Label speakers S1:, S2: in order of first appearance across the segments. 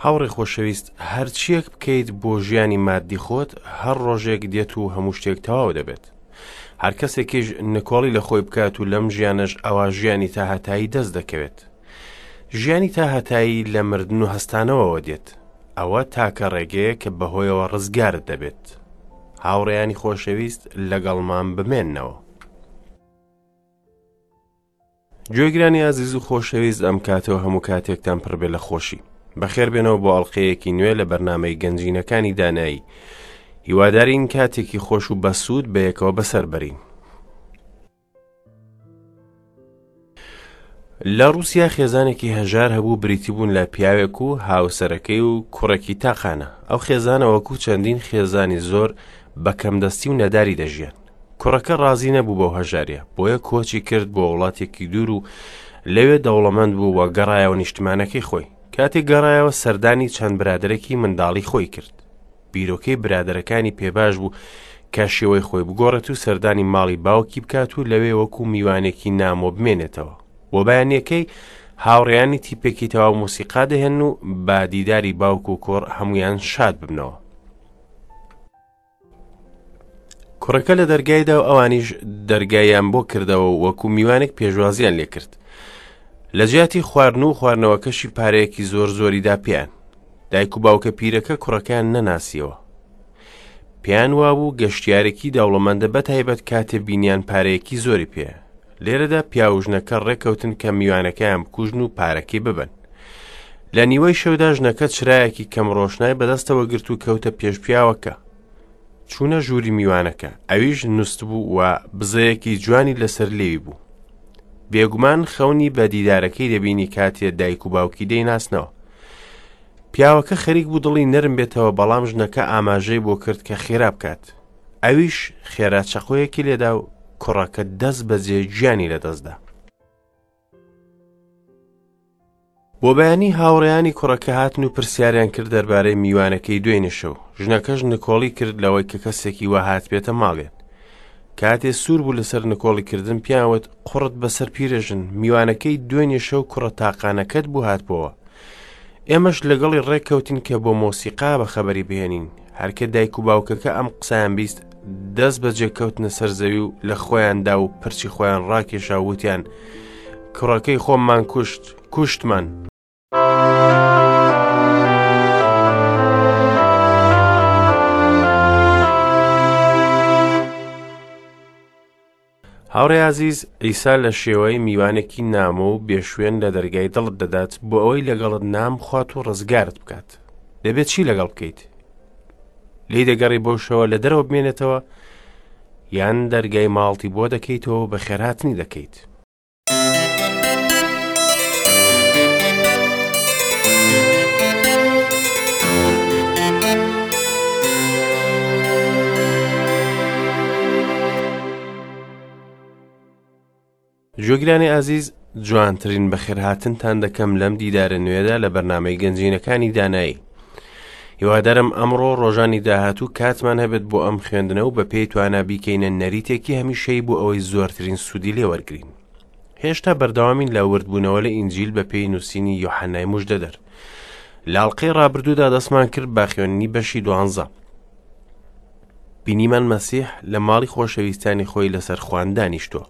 S1: هاوڕێی خۆشەویست، هەرچییەک بکەیت بۆ ژیانی ماددی خۆت، هەر ڕۆژێک دێت و هەموو شتێک تەواو دەبێت. هەر کەسێکیش نکۆڵی لە خۆی بکات و لەم ژیانەش ئەوا ژیانی تاهەتایی دەست دەکەوێت. ژیانی تاهەتایی لە مردن و هەستانەوەوە دێت. ئەوە تاکە ڕێگەیە کە بەهۆیەوە ڕزگارت دەبێت. هاوڕێیانی خۆشەویست لەگەڵمان بمێننەوە. گوێگرانی ئازیز و خۆشەویست ئەم کاتەوە هەموو کاتێکتان پڕبێ لە خۆشی بەخێر بێنەوە بۆ ئەڵلقەیەکی نوێ لە بەرنمەی گەنجینەکانی دانایی هیوادارین کاتێکی خۆش و بەسوود بەیەکەوە بەسەر بەرین لە ڕوسیا خێزانێکی هەژار هەبوو بریتی بوون لە پیاوێک و هاوسەرەکەی و کوڕێکی تاقانە ئەو خێزانە وەکو چەندین خێزانی زۆر بە کەمدەستی و نەداری دەژیان کوڕەکە ڕازی نەبوو بەو هەژاریە بۆیە کۆچی کرد بۆ وڵاتێکی دوور و لەوێ دەوڵەمەند بوو و گەڕایەوە نیشتمانەکەی خۆی کاتێک گەڕایەوە سەردانی چەند برادەرێکی منداڵی خۆی کرد بیرۆکەی برادەرەکانی پێباش بوو کە شێوەی خۆی بگۆڕێت و سەردانی ماڵی باوکی بکات و لەوێ وەکو میوانێکی نامۆ بمێنێتەوە بۆ بەیانیەکەی هاوڕێیانی تیپێکی تەواو مۆسیقا دەهێن و بە دیداری باوک و کوڕ هەمویان شاد ببنەوە کوڕەکە لە دەرگایدا و ئەوانیش دەرگایان بۆ کردەوە و وەکو میوانێک پێشوازیان لێکرد لە جیاتی خواردن و خواردنەوەکەشی پارەیەکی زۆر زۆریدا پێیان دایک و باوکە پیرەکە کوڕەکەیان نەناسیەوە پێیان وابوو گەشتیارێکی دەوڵەمەندە بە تایبەت کاتێ بینیان پارەیەکی زۆری پێ لێرەدا پیاوژنەکە ڕێکەوتن کە میوانەکەیان بکوژن و پارەکەی ببن لە نیوەی شەودا ژنەکە چرایەکی کەم ڕۆشنای بەدەستەوە گرت و کەوتە پێش پیاوەکە چوونە ژووری میوانەکە ئەویش نووسبوو و بزەیەکی جوانی لەسەر لێوی بوو بێگومان خەونی بە دیدارەکەی دەبینی کاتێ دایک و باوکی دەیناسنەوە پیاوەکە خەریک بوو دڵی نەرم بێتەوە بەڵام ژنەکە ئاماژەی بۆ کرد کە خێرا بکات ئەویش خێرا چەقۆیەکی لێدا و کوڕەکە دەست بەجێ گیانی لەدەستدا بۆ بەیانی هاوڕێیانی کوڕەکە هاتن و پرسیاریان کرد دەربارەی میوانەکەی دوێنێ شەو ژنەکەش نکۆڵی کرد لەوەی کە کەسێکی وا هاتبێتە ماڵیان کاتێ سوور بوو لەسەر نکۆڵی کردن پیاوت قوڕت بەسەر پیرەژن میوانەکەی دوێنێ شەو کوڕە تاقانەکەت بوو هاتبەوە ئێمەش لەگەڵی ڕێککەوتین کە بۆ مۆسیقا بە خەبەری بهێنین هەرکە دایک و باوکەکە ئەم قسەیان بیست دەست بەجێ کەوتنە سەر زەوی و لە خۆیاندا و پرچی خۆیان ڕاکێشا وتیان کوڕەکەی خۆممان کوشت کوشتمان. هاوڕێ ئازیز عیسا لە شێوەی میوانێکی نامۆ و بێشوێن لە دەرگای دڵت دەدات بۆ ئەوەی لەگەڵت نام بخوات و ڕزگارت بکات دەبێت چی لەگەڵ بکەیت لی دەگەڕی بۆ شەوە لە دەرەوە بمێنێتەوە یان دەرگای ماڵتی بۆ دەکەیتەوە بە خێرهاتنی دەکەیت جۆگرانی ئازیز جوانترین بەخێرهاتنتان دەکەم لەم دیدارە نوێدا لە بەرنامەی گەنجینەکانی دانایی هیوادارم ئەمڕۆ ڕۆژانی داهاتوو کاتمان هەبێت بۆ ئەم خوێندنە و بە پێی توانا بیکەینە نەریتێکی هەمیشەی بۆ ئەوەی زۆرترین سوودی لێوەرگین هێشتا بەردەوامین لە وردبوونەوە لە ئینجیل بە پێی نووسینی یۆحەنای مژدەدەر لە ئەڵقەی ڕابردوودا دەستمان کرد بە خوێندنی بەشی دوانزە بینیمان مەسیح لە ماڵی خۆشەویستانی خۆی لەسەر خوان دانیشتووە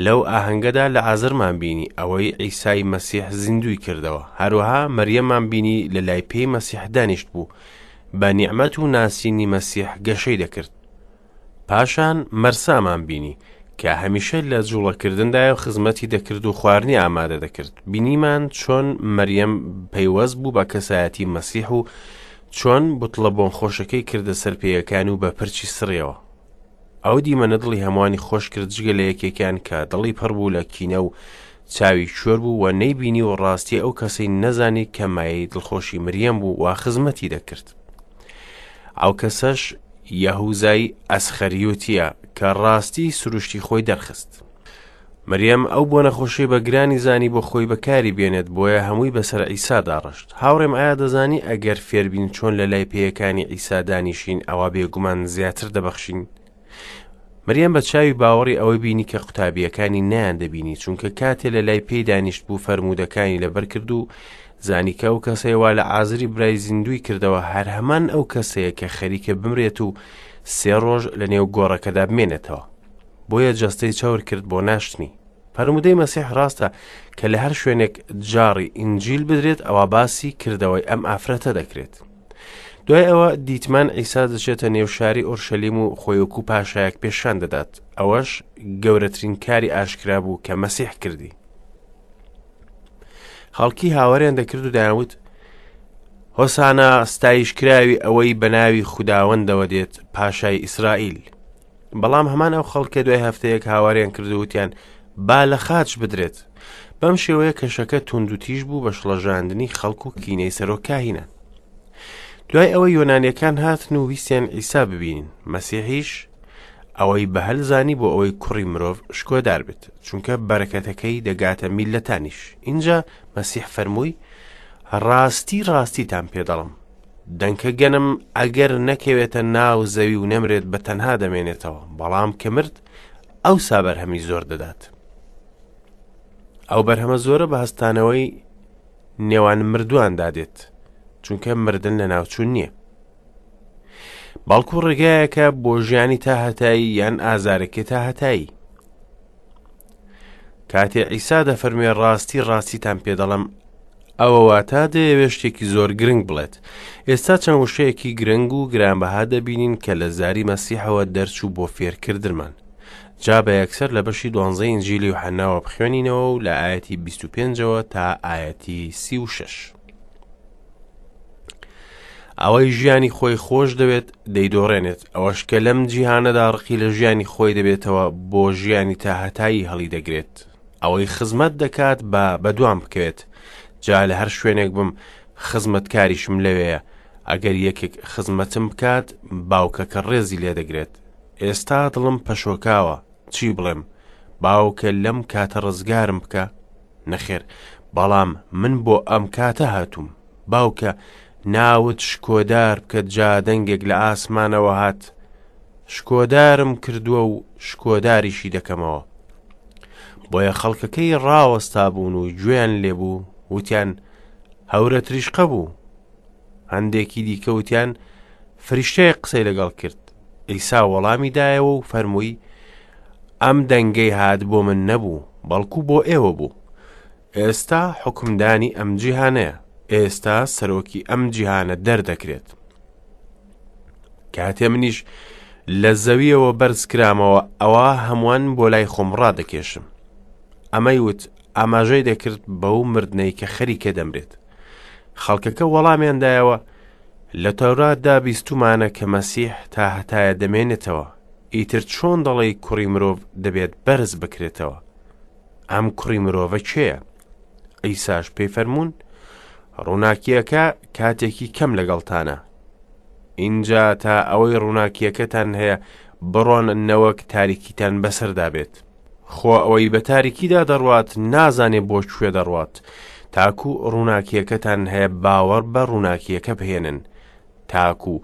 S1: لەو ئاهەنگەدا لە ئازرمان بینی ئەوەی عیسای مەسیح زیندوی کردەوە هەروەها مەریەمان بینی لە لای پێی مەسیح دانیشت بوو بە نیعمەت و ناسینی مەسیح گەشەی دەکرد پاشان مەرسامان بینی کە هەمیشە لە جوڵەکردندایە و خزمەتی دەکرد و خواردنی ئامادە دەکرد بینیمان چۆن مەریەم پەیوەست بوو بە کەسایەتی مەسیح و چۆن بوتڵە بۆنخۆشەکەی کردە سەر پێیەکان و بە پرچی سڕیەوە ئەو دیمەنە دڵی هەمووانی خۆش کرد جگە لە یەکێکیان کە دڵی پڕ بوو لە کینە و چاوی کوێر بوو و نەیبینی و ڕاستی ئەو کەسەی نەزانی کە مایەی دڵخۆشی مریەم بوو و خزمەتی دەکرد ئەو کەسەش یەهوزای ئەسخەریوتیە کە ڕاستی سروشتی خۆی دەرخست. مریەم ئەو بۆنە خۆشەی بە گرانی زانی بۆ خۆی بەکاری بێنێت بۆیە هەمووی بەسەر عیسادا ڕشت. هاوڕێم ئایا دەزانی ئەگەر فێربین چۆن لە لای پێیەکانی عیسا دانیشین ئەوا بێگومان زیاتر دەبەخشین؟ مریەم بە چاوی باوەڕی ئەوەی بینی کە قوتابییەکانی نەیان دەبینی چونکە کاتێ لە لای پێی دانیشت بوو فەرموودەکانی لەبەر کرد و زانی کە ئەو کەسەی وا لەعازری برای زیندووی کردەوە هەر هەمان ئەو کەسەیە کە خەریکە بمرێت و سێ ڕۆژ لە نێو گۆڕەکەدا بمێنێتەوە. بۆیە جەستەی چەور کرد بۆ ناشتنی. فەرموودەی مەسیح ڕاستە کە لە هەر شوێنێک جاڕی ئینجیل بدرێت ئەوا باسی کردەوەی ئەم ئافرەتە دەکرێت. دوای ئەوە دیتمان عیسا دەچێتە نێو شاری ئۆرشەلیم و خۆی وەکو پاشایەک پێشان دەدات. ئەوەش گەورەترین کاری ئاشکرا بوو کە مەسیح کردی. خەڵکی هاواریان دەکرد و دەیانوت هۆسانا ستایشکراوی ئەوەی بە ناوی خوداوەندەوە دێت پاشای ئیسرائیل. بەڵام هەمان ئەو خەڵکە دوای هەفتەیەک هاواریان کرد و وتیان با لە خاچ بدرێت. بەم شێوەیە کەشەکە توند و تیژ بوو بە شڵەژاندنی خەڵک و کینەی سەرۆک کاهینان. دوای ئەوە یۆنانیەکان هاتن و ویستیان عیسا ببینن، مەسیحیش ئەوەی بە هەل زانی بۆ ئەوەی کوڕی مرۆڤ شکۆدار بێت، چونکە بەرەکەتەکەی دەگاتە میللەتانیش. ئینجا مەسیح فەرمووی، ڕاستی ڕاستیتان پێ دەڵم، دەنکە گەنم ئەگەر نەکەوێتە ناو زەوی و نەمرێت بە تەنها دەمێنێتەوە، بەڵام کە مرد ئەوسا بەرهەمی زۆر دەدات. ئەو بەرهەمە زۆرە بە هەستانەوەی نێوان مردوواندا دێت، چونکە مردن لە ناوچوون نییە. بەڵکو ڕێگایەکە بۆ ژیانی تا هەتایی یان ئازارێکی تا هەتایی. کاتێ عیسا دەفەرموێ ڕاستی ڕاستیتان پێ دەڵێم ئەوە واتا دەیەوێ شتێکی زۆر گرنگ بڵێت. ئێستا چەند وشەیەکی گرنگ و گرانبەها دەبینین کە لە زاری مەسیحەوە دەرچوو بۆ فێرکردنمان. جا بە یەکسەر لە بەشی دوانزەی ئینجیلی یوحەناوە بخوێنینەوە و لە ئایەتی 25ەوە تا ئایەتی 36. ئەوەی ژیانی خۆی خۆش دەوێت دەیدۆڕێنێت، ئەوەش کە لەم جیهانەدا ڕقی لە ژیانی خۆی دەبێتەوە بۆ ژیانی تاهەتایی هەڵیدەگرێت. ئەوەی خزمەت دەکات با بەدوام بکەوێت، جا لە هەر شوێنێک بم خزمەتکاریشم لەوێیە، ئەگەر یەکێک خزمەتم بکات باوکەکە ڕێزی لێدەگرێت. ئێستا دڵم پەشۆکاوە، چی بڵێم؟ باوکە لەم کاتە ڕزگارم بکە؟ نەخێر، بەڵام من بۆ ئەم کاتە هاتووم. باوکە، ناوت شکۆدار بکە جا دەنگێک لە ئاسمانەوە هات، شکۆدارم کردووە و شکۆداریشی دەکەمەوە. بۆیە خەڵکەکەی ڕاوەستا بوون و گوێیان لێبوو، وتیان هەورە تریشقە بوو. هەندێکی دیکە وتیان فریشتەیەک قسەی لەگەڵ کرد. عیسا وەڵامی دایەوە و فەرمووی ئەم دەنگەی هات بۆ من نەبوو، بەڵکو بۆ ئێوە بوو. ئێستا حوکمدانی ئەم جیهانەیە، ئێستا سەرۆکی ئەم جیهانە دەردەکرێت. کاتێ منیش لە زەویەوە بەرز کرامەوە ئەوا هەمووان بۆ لای خۆم ڕادەکێشم. ئەمەی وت ئاماژەی دەکرد بەو مردنەی کە خەریکە دەمرێت. خەڵکەکە وەڵامیان دایەوە لە تەوراتدا بیستومانە کە مەسیح تا هەتایە دەمێنێتەوە، ئیتر چۆن دەڵێی کوڕی مرۆڤ دەبێت بەرز بکرێتەوە؟ ئەم کوڕی مرۆڤە کێیە؟ عیساش پێی فەرموون، ڕووناکییەکە کاتێکی کەم لەگەڵتانە. ئینجا تا ئەوەی ڕووناکییەکەتان هەیە بڕۆن نەوەک تاریکیتان بەسەردا بێت. خۆ ئەوەی بە تاریکیدا دەڕوات نازانێ بۆ کوێ دەڕوات. تاکو ڕووناکییەکەتان هەیە باوەڕ بە ڕووناکییەکە بهێنن، تاکو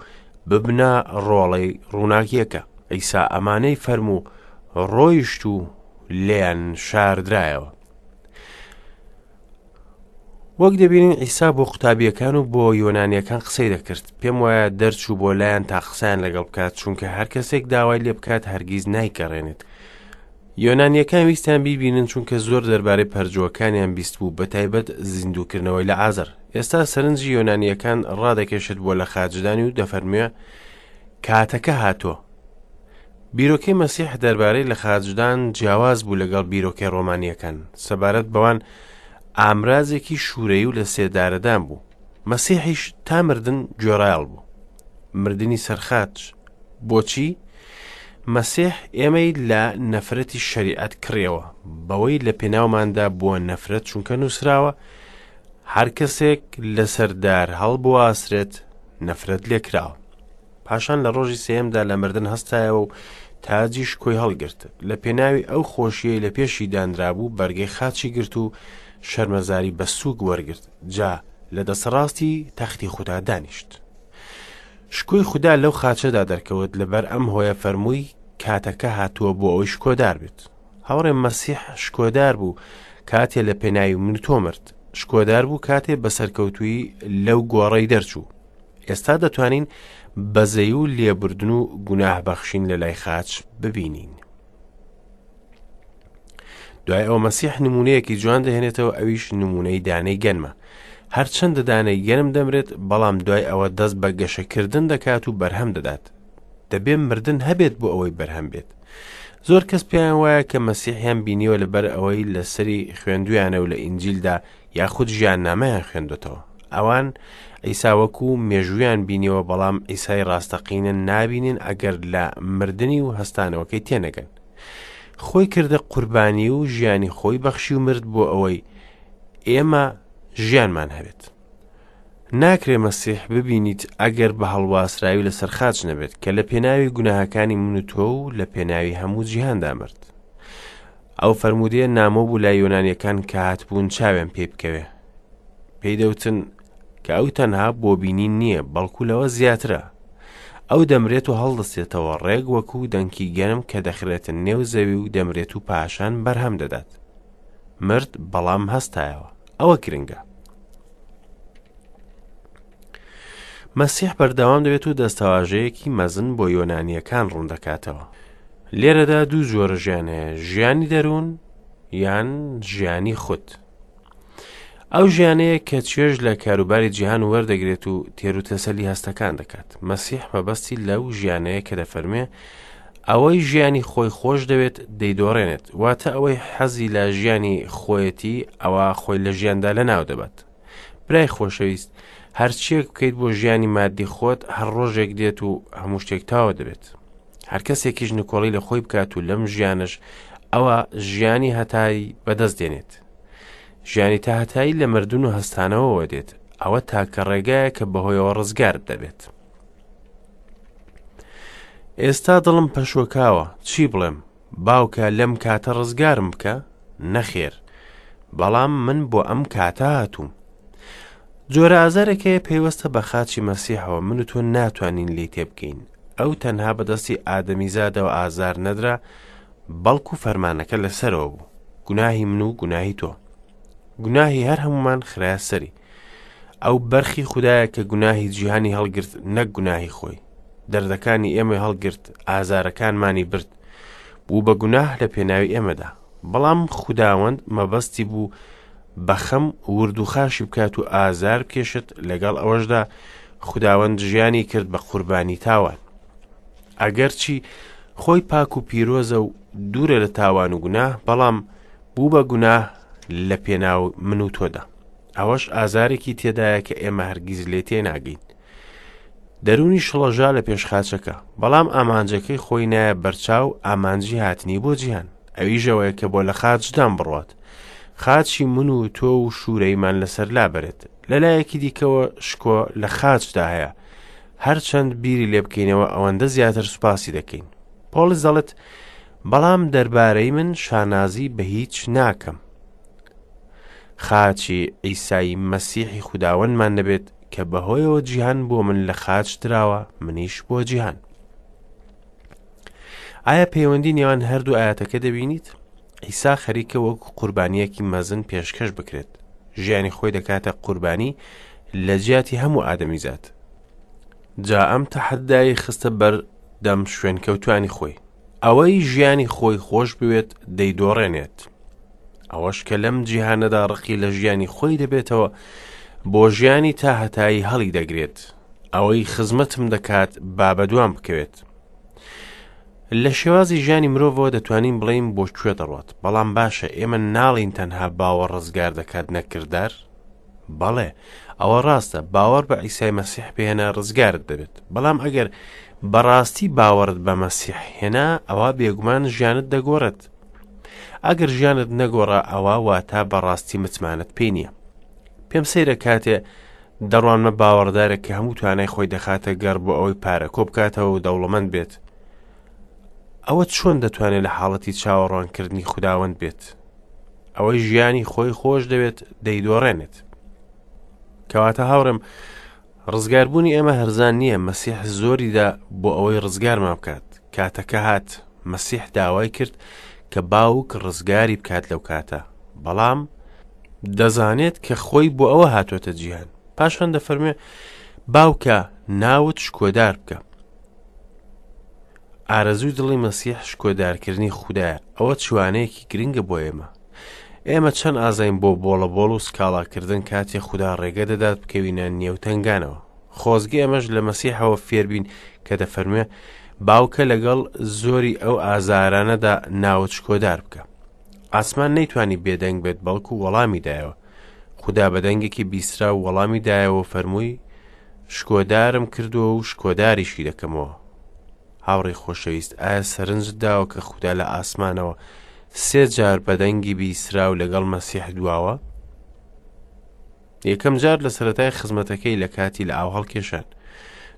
S1: ببنە ڕۆڵەی ڕووناکییەکە. عیسا ئەمانەی فەرموو، ڕۆیشت و لێیان شاردرایەوە. وەک دەبینین عیسا بۆ قوتابیەکان و بۆ یۆنانیەکان قسەی دەکرد پێم وایە دەرچوو بۆ لایەن تا قسەیان لەگەڵ بکات چونکە هەر کەسێک داوای لێ بکات هەرگیز نایگەڕێنێت یۆنانیەکان ویستیان بیبینن چونکە زۆر دەربارەی پەرجووەکانیان بیستبوو بە تایبەت زیندووکردنەوەی لە عازر ئێستا سەرنجی یۆنانیەکان ڕادەکێشێت بۆ لە خاچدانی و دەفەرموێ کاتەکە هاتووە بیرۆکەی مەسیح دەربارەی لە خاچدان جیاواز بوو لەگەڵ بیرۆکەی ڕۆمانیەکان سەبارەت بەوان ئامرازێکی شوورەی و لە سێدارەدان بوو مەسیحیش تا مردن گوێڕایەڵ بوو مردنی سەرخاچ بۆچی؟ مەسیح ئێمەی لە نەفرەتی شەریعەت کڕیەوە، بەوەی لە پێناوماندا بووە نەفرەت چونکە نووسراوە، هەر کەسێک لەسەر دار هەڵبواسرێت نەفرەت لێکراوە. پاشان لە ڕۆژی سێیەمدا لە مردن هەستایەوە و تاجی شکۆی هەڵگرت. لە پێناوی ئەو خۆشیەی لە پێشی دانرابوو بەرگەی خاچی گرت و شەرمەزاری بە سووک وەرگرت، جا لە دەستڕاستی تەختی خودا دانیشت. شکۆی خودا لەو خاچەدا دەرکەوت، لەبەر ئەم هۆیە فەرمووی، کاتەکە هاتووە بۆ ئەوەی شکۆدار بێت. هاوڕێ مەسیح شکۆدار بوو کاتێ لە پێناوی من و تۆ مرد. شکۆدار بوو کاتێ بە سەرکەوتوویی لەو گۆڕەی دەرچوو. ئێستا دەتوانین بەزەی و لێبوردن و گوناه بەخشین لە لای خاچ ببینین. دوای ئەوە مەسیح نمونەیەکی جوان دەهێنێتەوە ئەویش نمونەی دانەی گەنمە. هەرچەندە دانەی گەنم دەمرێت بەڵام دوای ئەوە دەست بە گەشەکردن دەکات و بەرهەم دەدات. دەبێ مردن هەبێت بۆ ئەوەی بەرهەم بێت. زۆر کەس پێیان وایە کە مەسیحیان بینیوە لەبەر ئەوەی لەسەری خوێندویانە و لە ئینجیلدا یاخود ژیاننامەیان خوێندوتەوە. ئەوان عیسا وەکو مێژوویان بینیوە بەڵام عیسای ڕاستەقینە نابینن ئەگەر لە مردنی و هەستانەوەکەی تێنەگەن. خۆی کردە قوربانی و ژیانی خۆی بەخشی و مرد بۆ ئەوەی ئێمە ژیانمان هەبێت. ناکرێ مەسیح ببینیت ئەگەر بە هەڵواسراوی لەسەر خاچ نەبێت کە لە پێناوی گوناهەکانی من و تۆ و لە پێناوی هەموو جیهاندا مرد. ئەو فەرموودەیە نامۆ بوو لای یۆنانیەکان کە هاتبوون چاویان پێی بکەوێ. پێی دەوتن کە ئەو تەنها بۆ بینین نییە بەڵکو لەوە زیاترە. ئەو دەمرێت و هەڵدەستێتەوە ڕێک وەکو دەنکی گەنم کە دەخرێتە نێو زەوی و دەمرێت و پاشان بەرهەم دەدات. مرد بەڵام هەستایەوە. ئەوە گرنگە. مەسیح بەردەوام دەبێت و دەستەواژەیەکی مەزن بۆ یۆنانییەکان ڕوون دەکاتەوە. لێرەدا دوو جۆرە ژیان هەیە، ژیانی دەروون یان ژیانی خود. ئەو ژیانەیە کە چێژ لە کاروباری جیهان وەردەگرێت و تێر و تەسەلی هەستەکان دەکات. مەسیح مەبەستی لەو ژیانەیە کە دەفەرمێ ئەوەی ژیانی خۆی خۆش دەوێت دەیدۆڕێنێت، واتە ئەوەی حەزی لە ژیانی خۆیەتی ئەوە خۆی لە ژیاندا لەناو دەبات. برای خۆشەویست هەرچیەک بکەیت بۆ ژیانی مادی خۆت هەر ڕۆژێک دێت و هەموو شتێک تاوە دەبێت. هەر کەسێکیش نکۆڵی لە خۆی بکات و لەم ژیانش ئەوە ژیانی هەتایی بەدەست دێنێت. ژیانی تا هەتایی لە مردن و هەستانەوەوە دێت، ئەوە تاکە ڕێگایە کە بەهۆیەوە ڕزگارت دەبێت. ئێستا دڵم پەشۆکاوە، چی بڵێم؟ باوکە لەم کاتە ڕزگارم بکە؟ نەخێر، بەڵام من بۆ ئەم کاتە هاتووم. جۆرە ئازارێک هەیە پەیوەستە بە خاچی مەسیحەوە، من و تۆ ناتوانین لێی تێبگەین. ئەو تەنها بەدەستی ئادەمیزادەوە ئازار نەدرا، بەڵکو فەرمانەکە لەسەرەوە بوو، گوناهی من و گوناهی تۆ. گوناهی هەر هەمومان خرایە سەری. ئەو بەرخی خودایە کە گوناهی جیهانی هەڵگرت نەک گوناهی خۆی. دەردەکانی ئێمەی هەڵگرت، ئازارەکانمانی برد. بوو بە گوناه لە پێناوی ئێمەدا. بەڵام خوداوەند مەبەستی بوو بە خەم ورد و خاشی بکات و ئازار بکێشت لەگەڵ ئەوەشدا خوداوەند ژیانی کرد بە قوربانی تاوان. ئەگەرچی خۆی پاک و پیرۆزە و دوورە لە تاوان و گوناه بەڵام بوو بە گوناه لە پێناو من و تۆدا. ئەوەش ئازارێکی تێدایە کە ئێمە هەرگیز لێ تێناگەین. دەروونی شڵەژا لە پێش خاچەکە، بەڵام ئامانجەکەی خۆی نایە بەرچاو ئامانجی هاتنی بۆ جیهان. ئەویش ئەوەیە کە بۆ لە خاچدان بڕوات. خاچی من و تۆ و شوورەیمان لەسەر لابەرێت. لەلایەکی دیکەوە شکۆ لە خاچدا هەیە. هەرچەند بیری لێ بکەینەوە ئەوەندە زیاتر سوپاسی دەکەین. پۆڵس دەڵێت، بەڵام دەربارەی من شانازی بە هیچ ناکەم. خاچی عیسای مەسیحی خوداوەندمان نەبێت کە بەهۆیەوە جیهان بۆ من لە خاچ دراوە منیش بۆ جیهان. ئایا پەیوەندی نێوان هەردوو ئاەتەکە دەبینیت؟ عیسا خەریکە وەکو قوربانیەکی مەزن پێشکەش بکرێت. ژیانی خۆی دەکاتە قوربانی لە جیاتی هەموو ئادەمیزاد. جا ئەم تەحەدای خستە بەر دەم شوێنکەوتوانی خۆی. ئەوەی ژیانی خۆی خۆش بوێت دەیدۆڕێنێت. ئەوەش کە لەم جیهانەدا ڕقی لە ژیانی خۆی دەبێتەوە بۆ ژیانی تا هەتایی هەڵی دەگرێت. ئەوەی خزمەتم دەکات با بەدوام بکەوێت. لە شێوازی ژیانی مرۆڤەوە دەتوانین بڵێین بۆ کوێ دەڕوات، بەڵام باشە ئێمە ناڵین تەنها باوەڕ ڕزگار دەکات نەک کردار؟ بەڵێ، ئەوە ڕاستە، باوەڕ بە عیسای مەسیح بهێنە ڕزگارت دەبێت، بەڵام ئەگەر بەڕاستی باوەڕت بە مەسیح هێنا ئەوا بێگومان ژیانت دەگۆڕێت. ئەگەر ژیانت نەگۆڕا ئەوا واتە بەڕاستی متمانەت پێی نییە. پێم سەیرە کاتێ دەڕوانمە باوەڕدارێک کە هەموو توانای خۆی دەخاتە گەڕ بۆ ئەوەی پارە کۆ بکاتەوە و دەوڵەمەند بێت. ئەوە چۆن دەتوانێت لە حاڵەتی چاوەڕوانکردنی خوداوەند بێت؟ ئەوەی ژیانی خۆی خۆش دەوێت دەیدۆڕێنێت. کەواتە هاوڕێم ڕزگاربوونی ئێمە هەرزان نییە، مەسیح زۆریدا بۆ ئەوەی ڕزگارمان بکات. کاتەکە هات، مەسیح داوای کرد کە باوک ڕزگاری بکات لەو کاتە، بەڵام دەزانێت کە خۆی بۆ ئەوە هاتۆتە جیهان. پاشان دەفەرموێ باوکە ناوت شکۆدار بکە. ئارەزووی دڵی مەسیح شکۆدارکردنی خودایە. ئەوە چوانەیەکی گرنگە بۆ ئێمە. ئێمە چەند ئازاین بۆ بۆڵە بۆڵ و سکاڵاکردن کاتێ خودا ڕێگە دەدات بکەوینە نێو تەنگانەوە. خۆزگە ئێمەش لە مەسیحەوە فێربین کە دەفەرموێ باوکە لەگەڵ زۆری ئەو ئازارانەدا ناوت شکۆدار بکە. ئاسمان نەیتوانی بێدەنگ بێت بەڵکو وەڵامی دایەوە. خودا بە دەنگێکی بیستراو وەڵامی دایەوە و فەرمووی شکۆدارم کردووە و شکۆداریشی دەکەمەوە. هاوڕێی خۆشەویست ئایا سەرنجت داوە کە خودا لە ئاسمانەوە سێ جار بە دەنگی بیستراو لەگەڵ مەسیح دواوە؟ یەکەم جار لە سەرەتای خزمەتەکەی لە کاتی لە ئاو هەڵکێشان.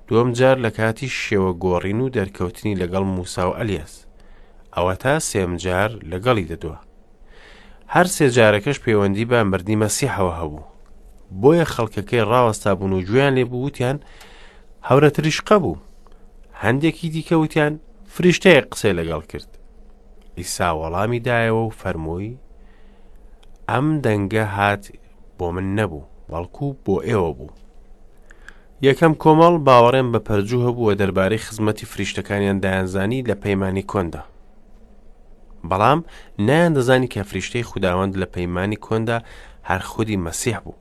S1: دووەم جار لە کاتی شێوە گۆڕین و دەرکەوتنی لەگەڵ موسا و ئەلیاس. ئەوەتا سێم جار لەگەڵی دەدوا. هەر سێ جارەکەش پەیوەندی بە مردنی مەسیحەوە هەبوو. بۆیە خەڵکەکەی ڕاوەستا بوون و گوێیان لێ بوو وتیان هەورە تریشقە بوو. هەندێکی دیکە وتیان فریشتەیەک قسەی لەگەڵ کرد. عیسا وەڵامی دایەوە و فەرمووی ئەم دەنگە هات بۆ من نەبوو بەڵکو بۆ ئێوە بوو. یەکەم کۆمەڵ باوەڕیان بە پەرجوو هەبوو و دەربارەی خزمەتی فریشتەکانیان دەیانزانی لە پەیمانی کۆندا. بەڵام نەیاندەزانی کە فریشتەی خوداوەند لە پەیمانی کۆندا هەر خودی مەسیح بوو.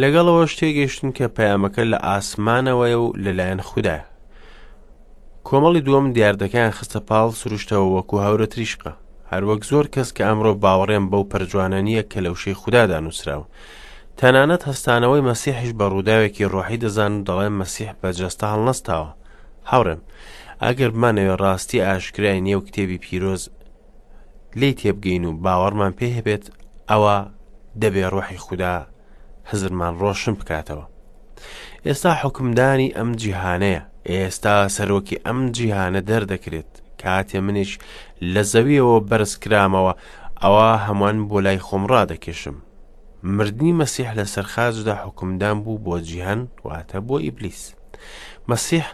S1: لەگەڵ ئەوەش تێگەیشتن کە پەیامەکە لە ئاسمانەوەیە و لەلایەن خودایە. کۆمەڵی دووەم دیاردەکەیان خستە پاڵ سروشتەوە وەکو هەورە تریشقە. هەروەک زۆر کەس کە ئەمڕۆ باوەڕیان بەو پەرجوانە نییە کە لە وشەی خودادا نووسراون. تەنانەت هەستانەوەی مەسیحیش بە ڕووداوێکی ڕۆحی دەزانن و دەڵێن مەسیح بە جەستە هەڵنەستاوە. هاوڕێم، ئەگەر بمانەوێ ڕاستی ئاشکرای نێو کتێبی پیرۆز لێی تێبگەین و باوەڕمان پێ هەبێت، ئەوا دەبێ ڕۆحی خودا هزرمان ڕۆشن بکاتەوە. ئێستا حوکمدانی ئەم جیهانەیە، ئێستا سەرۆکی ئەم جیهانە دەردەکرێت. کاتێ منیش لە زەویەوە بەرز کرامەوە، ئەوا هەمووان بۆ لای خۆم ڕادەکێشم. مردنی مەسیح لەسەر خاچدا حوکمدان بوو بۆ جیهان، واتە بۆ ئیبلیس. مەسیح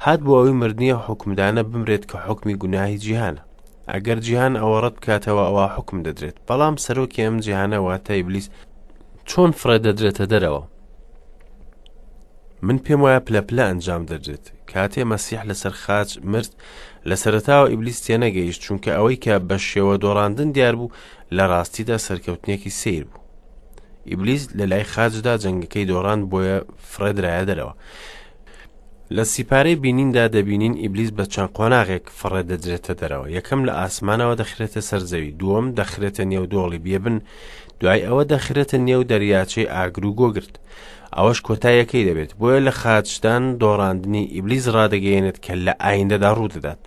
S1: هات بۆ ئەوەی مردنی ئەو حوکمدانە بمرێت کە حوکمی گوناهی جیهانە. ئەگەر جیهان ئەوە ڕەت بکاتەوە ئەوا حوکم دەدرێت. بەڵام سەرۆکی ئەم جیهانە واتە ئیبلیس چۆن فڕێ دەدرێتە دەرەوە؟ من پێم وایە پلە پلە ئەنجام دەدرێت. کاتێ مەسیح لەسەر خاچ مرد، لە سەرەتاوە ئیبلیس تێنەگەیشت، چونکە ئەوەی کە بە شێوە دۆڕاندن دیار بوو، لە ڕاستیدا سەرکەوتنێکی سەیر بوو. ئیبلیس لە لای خاچدا جەنگەکەی دۆڕاند بۆیە فڕێدرایە دەرەوە. لە سیپارەی بینیندا دەبینین ئیبلیس بە چەند قۆناغێک فڕێ دەدرێتە دەرەوە. یەکەم لە ئاسمانەوە دەخرێتە سەر زەوی، دووەم دەخرێتە نێو دۆڵی بێبن، دوای ئەوە دەخرێتە نێو دەریاچەی ئاگر و گۆگرد. ئەوەش کۆتاییەکەی دەبێت. بۆیە لە خاچدان دۆڕاندنی ئیبلیس ڕادەگەیەنێت کە لە ئایندەدا ڕوودەدات.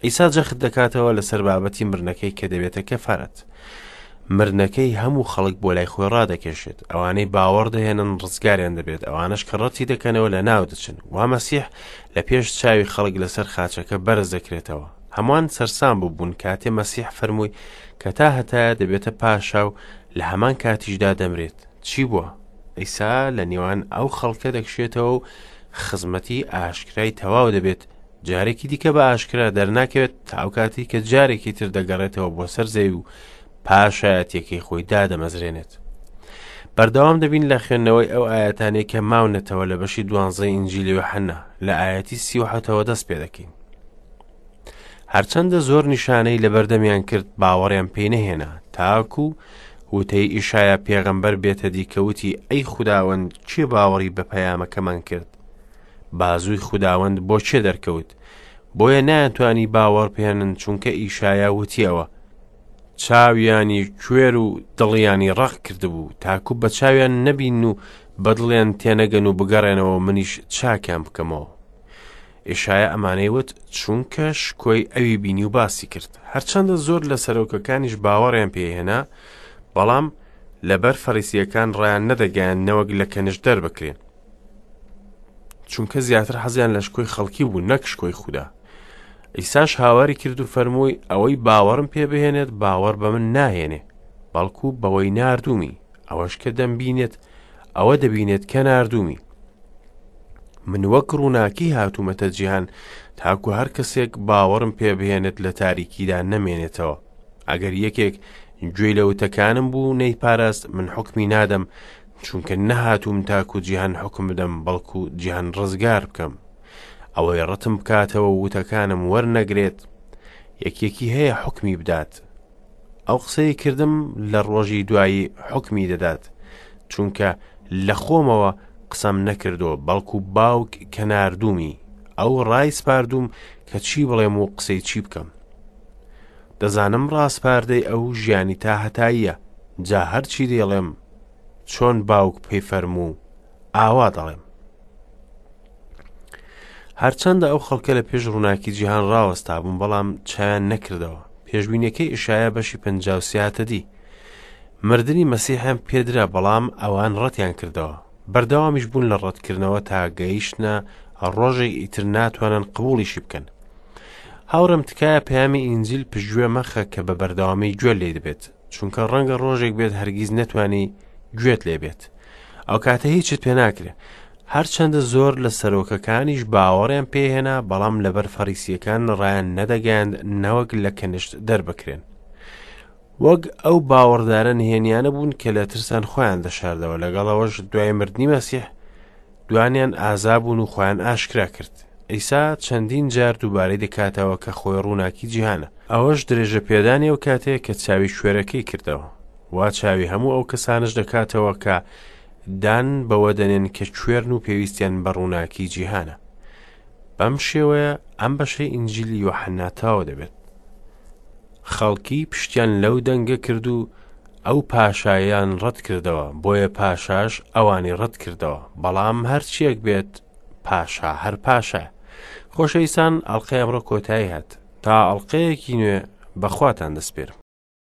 S1: عیسا جەخت دەکاتەوە لەسەر بابەتی مردنەکەی کە دەبێتە کەفارەت. مردنەکەی هەموو خەڵک بۆ لای خۆی ڕادەکێشێت. ئەوانەی باوەڕ دەهێنن ڕزگاریان دەبێت، ئەوانەش کە ڕەتی دەکەنەوە لە ناو دەچن. وا مەسیح لە پێش چاوی خەڵک لەسەر خاچەکە بەرز دەکرێتەوە. هەمووان سەرسام بووبوون کاتێ مەسیح فەرمووی کە تا هەتایە دەبێتە پاشا و لە هەمان کاتیشدا دەمرێت. چی بووە؟ عیسا لە نێوان ئەو خەڵکە دەکشێتەوە و خزمەتی ئاشکرای تەواو دەبێت، جارێکی دیکە بە ئاشکرا دەرناکەوێت تا ئەو کاتەی کە جارێکی تر دەگەڕێتەوە بۆ سەر زەوی و پاشایەتیەکەی خۆی دادەمەزرێنێت. بەردەوام دەبین لە خوێندنەوەی ئەو ئاەتانەی کە ماونەتەوە لە بەشی دوانزەی ئینجیلی یۆحەنا لە ئاەتی 37ەوە دەست پێ دەکەین. هەرچەندە زۆر نیشانەی لەبەردەمیان کرد باوەڕیان پێی نەهێنا تاکو وتەی ئیشایا پێغەمبەر بێتە دی کە وتی ئەی خوداوەند کێ باوەڕی بە پەیامەکەمان کرد بازووی خوداوەند بۆ کێ دەرکەوت؟ بۆیە نایانتوانی باوەڕ بهێنن چونکە ئیشایا وتیەوە چاویانی کوێر و دڵیانی ڕەق کردبوو تاکو بە چاویان نەبین و بە دڵیان تێنەگەن و بگەڕێنەوە منیش چاکیان بکەمەوە. ئیشایا ئەمانەی وت چونکە شکۆی ئەوی بینی و باسی کرد. هەرچەندە زۆر لە سەرۆکەکانیش باوەڕیان پێهێنا، بەڵام لەبەر فەریسییەکان ڕایان نەدەگەیاند نەوەک لە کەنیشت دەربکرێن. چونکە زیاتر حەزیان لە شکۆی خەڵکی بوو نەک شکۆی خودا. عیساش هاواری کرد و فەرمووی ئەوەی باوەڕم پێ بهێنێت باوەڕ بە من ناهێنێ بەڵکو بەوەی ناردوومی ئەوەش کە دەمبینێت ئەوە دەبینێت کە ناردوومی من وەک ڕووناکی هاتوومەتە جیهان تاکو هەر کەسێک باوەڕم پێ بهێنێت لە تاریکیدا نەمێنێتەوە ئەگەر یەکێک گوێی لە وتەکانم بوو نەیپاراست، من حوکمی نادەم، چونکە نەهاتووم تاکو جیهان حوکم بدەم، بەڵکو جیهان ڕزگار بکەم. ئەوەی ڕەتم بکاتەوە و وتەکانم وەرنەگرێت، یەکێکی هەیە حوکمی بدات. ئەو قسەی کردم لە ڕۆژی دوایی حوکمی دەدات، چونکە لە خۆمەوە قسەم نەکردووە، بەڵکو باوک کە ناردوومی، ئەو ڕایسپاردووم کە چی بڵێم و قسەی چی بکەم. دەزانم ڕاسپاردەی ئەو ژیانی تاهەتاییە، جا هەرچی دەیڵێم، چۆن باوک پێی فەرموو، ئاوا دەڵێم. هەرچەندە ئەو خەڵکە لە پێش ڕووناکی جیهان ڕاوەستابوون، بەڵام چایان نەکردەوە. پێشبینیەکەی ئیشایا بەشی 53 هاتە دی. مردنی مەسیحیان پێدرا، بەڵام ئەوان ڕەتیان کردەوە. بەردەوامیش بوون لە ڕەتکردنەوە تا گەیشتنە ڕۆژێک ئیتر ناتوانن قبوڵیشی بکەن. هاوڕێم تکایە پەیامی ئینجیل پشتگوێ مەخە کە بە بەردەوامی گوێ لێ دەبێت، چونکە ڕەنگە ڕۆژێک بێت هەرگیز نەتوانی گوێت لێ بێت. ئەو کاتە هیچت پێ ناکرێ. هەرچەندە زۆر لە سەرۆکەکانیش باوەڕیان پێهێنا، بەڵام لەبەر فەریسیەکان ڕایان نەدەگەیاند نەوەک لە کەنشت دەربکرێن. وەک ئەو باوەڕدارە نهێنیانە بوون کە لە ترسان خۆیان دەشاردەوە، لەگەڵ ئەوەش دوای مردنی مەسیح دوانیان ئازا بوون و خۆیان ئاشکرا کرد. عیسا چەندین جار دووبارەی دەکاتەوە کە خۆی ڕووناکی جیهانە. ئەوەش درێژە پێدانی ئەو کاتەیە کە چاوی کوێرەکەی کردەوە. وا چاوی هەموو ئەو کەسانەش دەکاتەوە کە دان بەوە دەنێن کە کوێرن و پێویستیان بە ڕووناکی جیهانە. بەم شێوەیە ئەم بەشەی ئینجیلی یۆحەنا تەواو دەبێت. خەڵکی پشتیان لەو دەنگە کرد و ئەو پاشایان ڕەت کردەوە، بۆیە پاشاش ئەوانی ڕەت کردەوە. بەڵام هەرچیەک بێت پاشا هەر پاشایە. خۆشەویستان ئەڵقەی ئەمڕۆ کۆتایی هات. تا ئەڵقەیەکی نوێ بەخواتان دەسپێرم.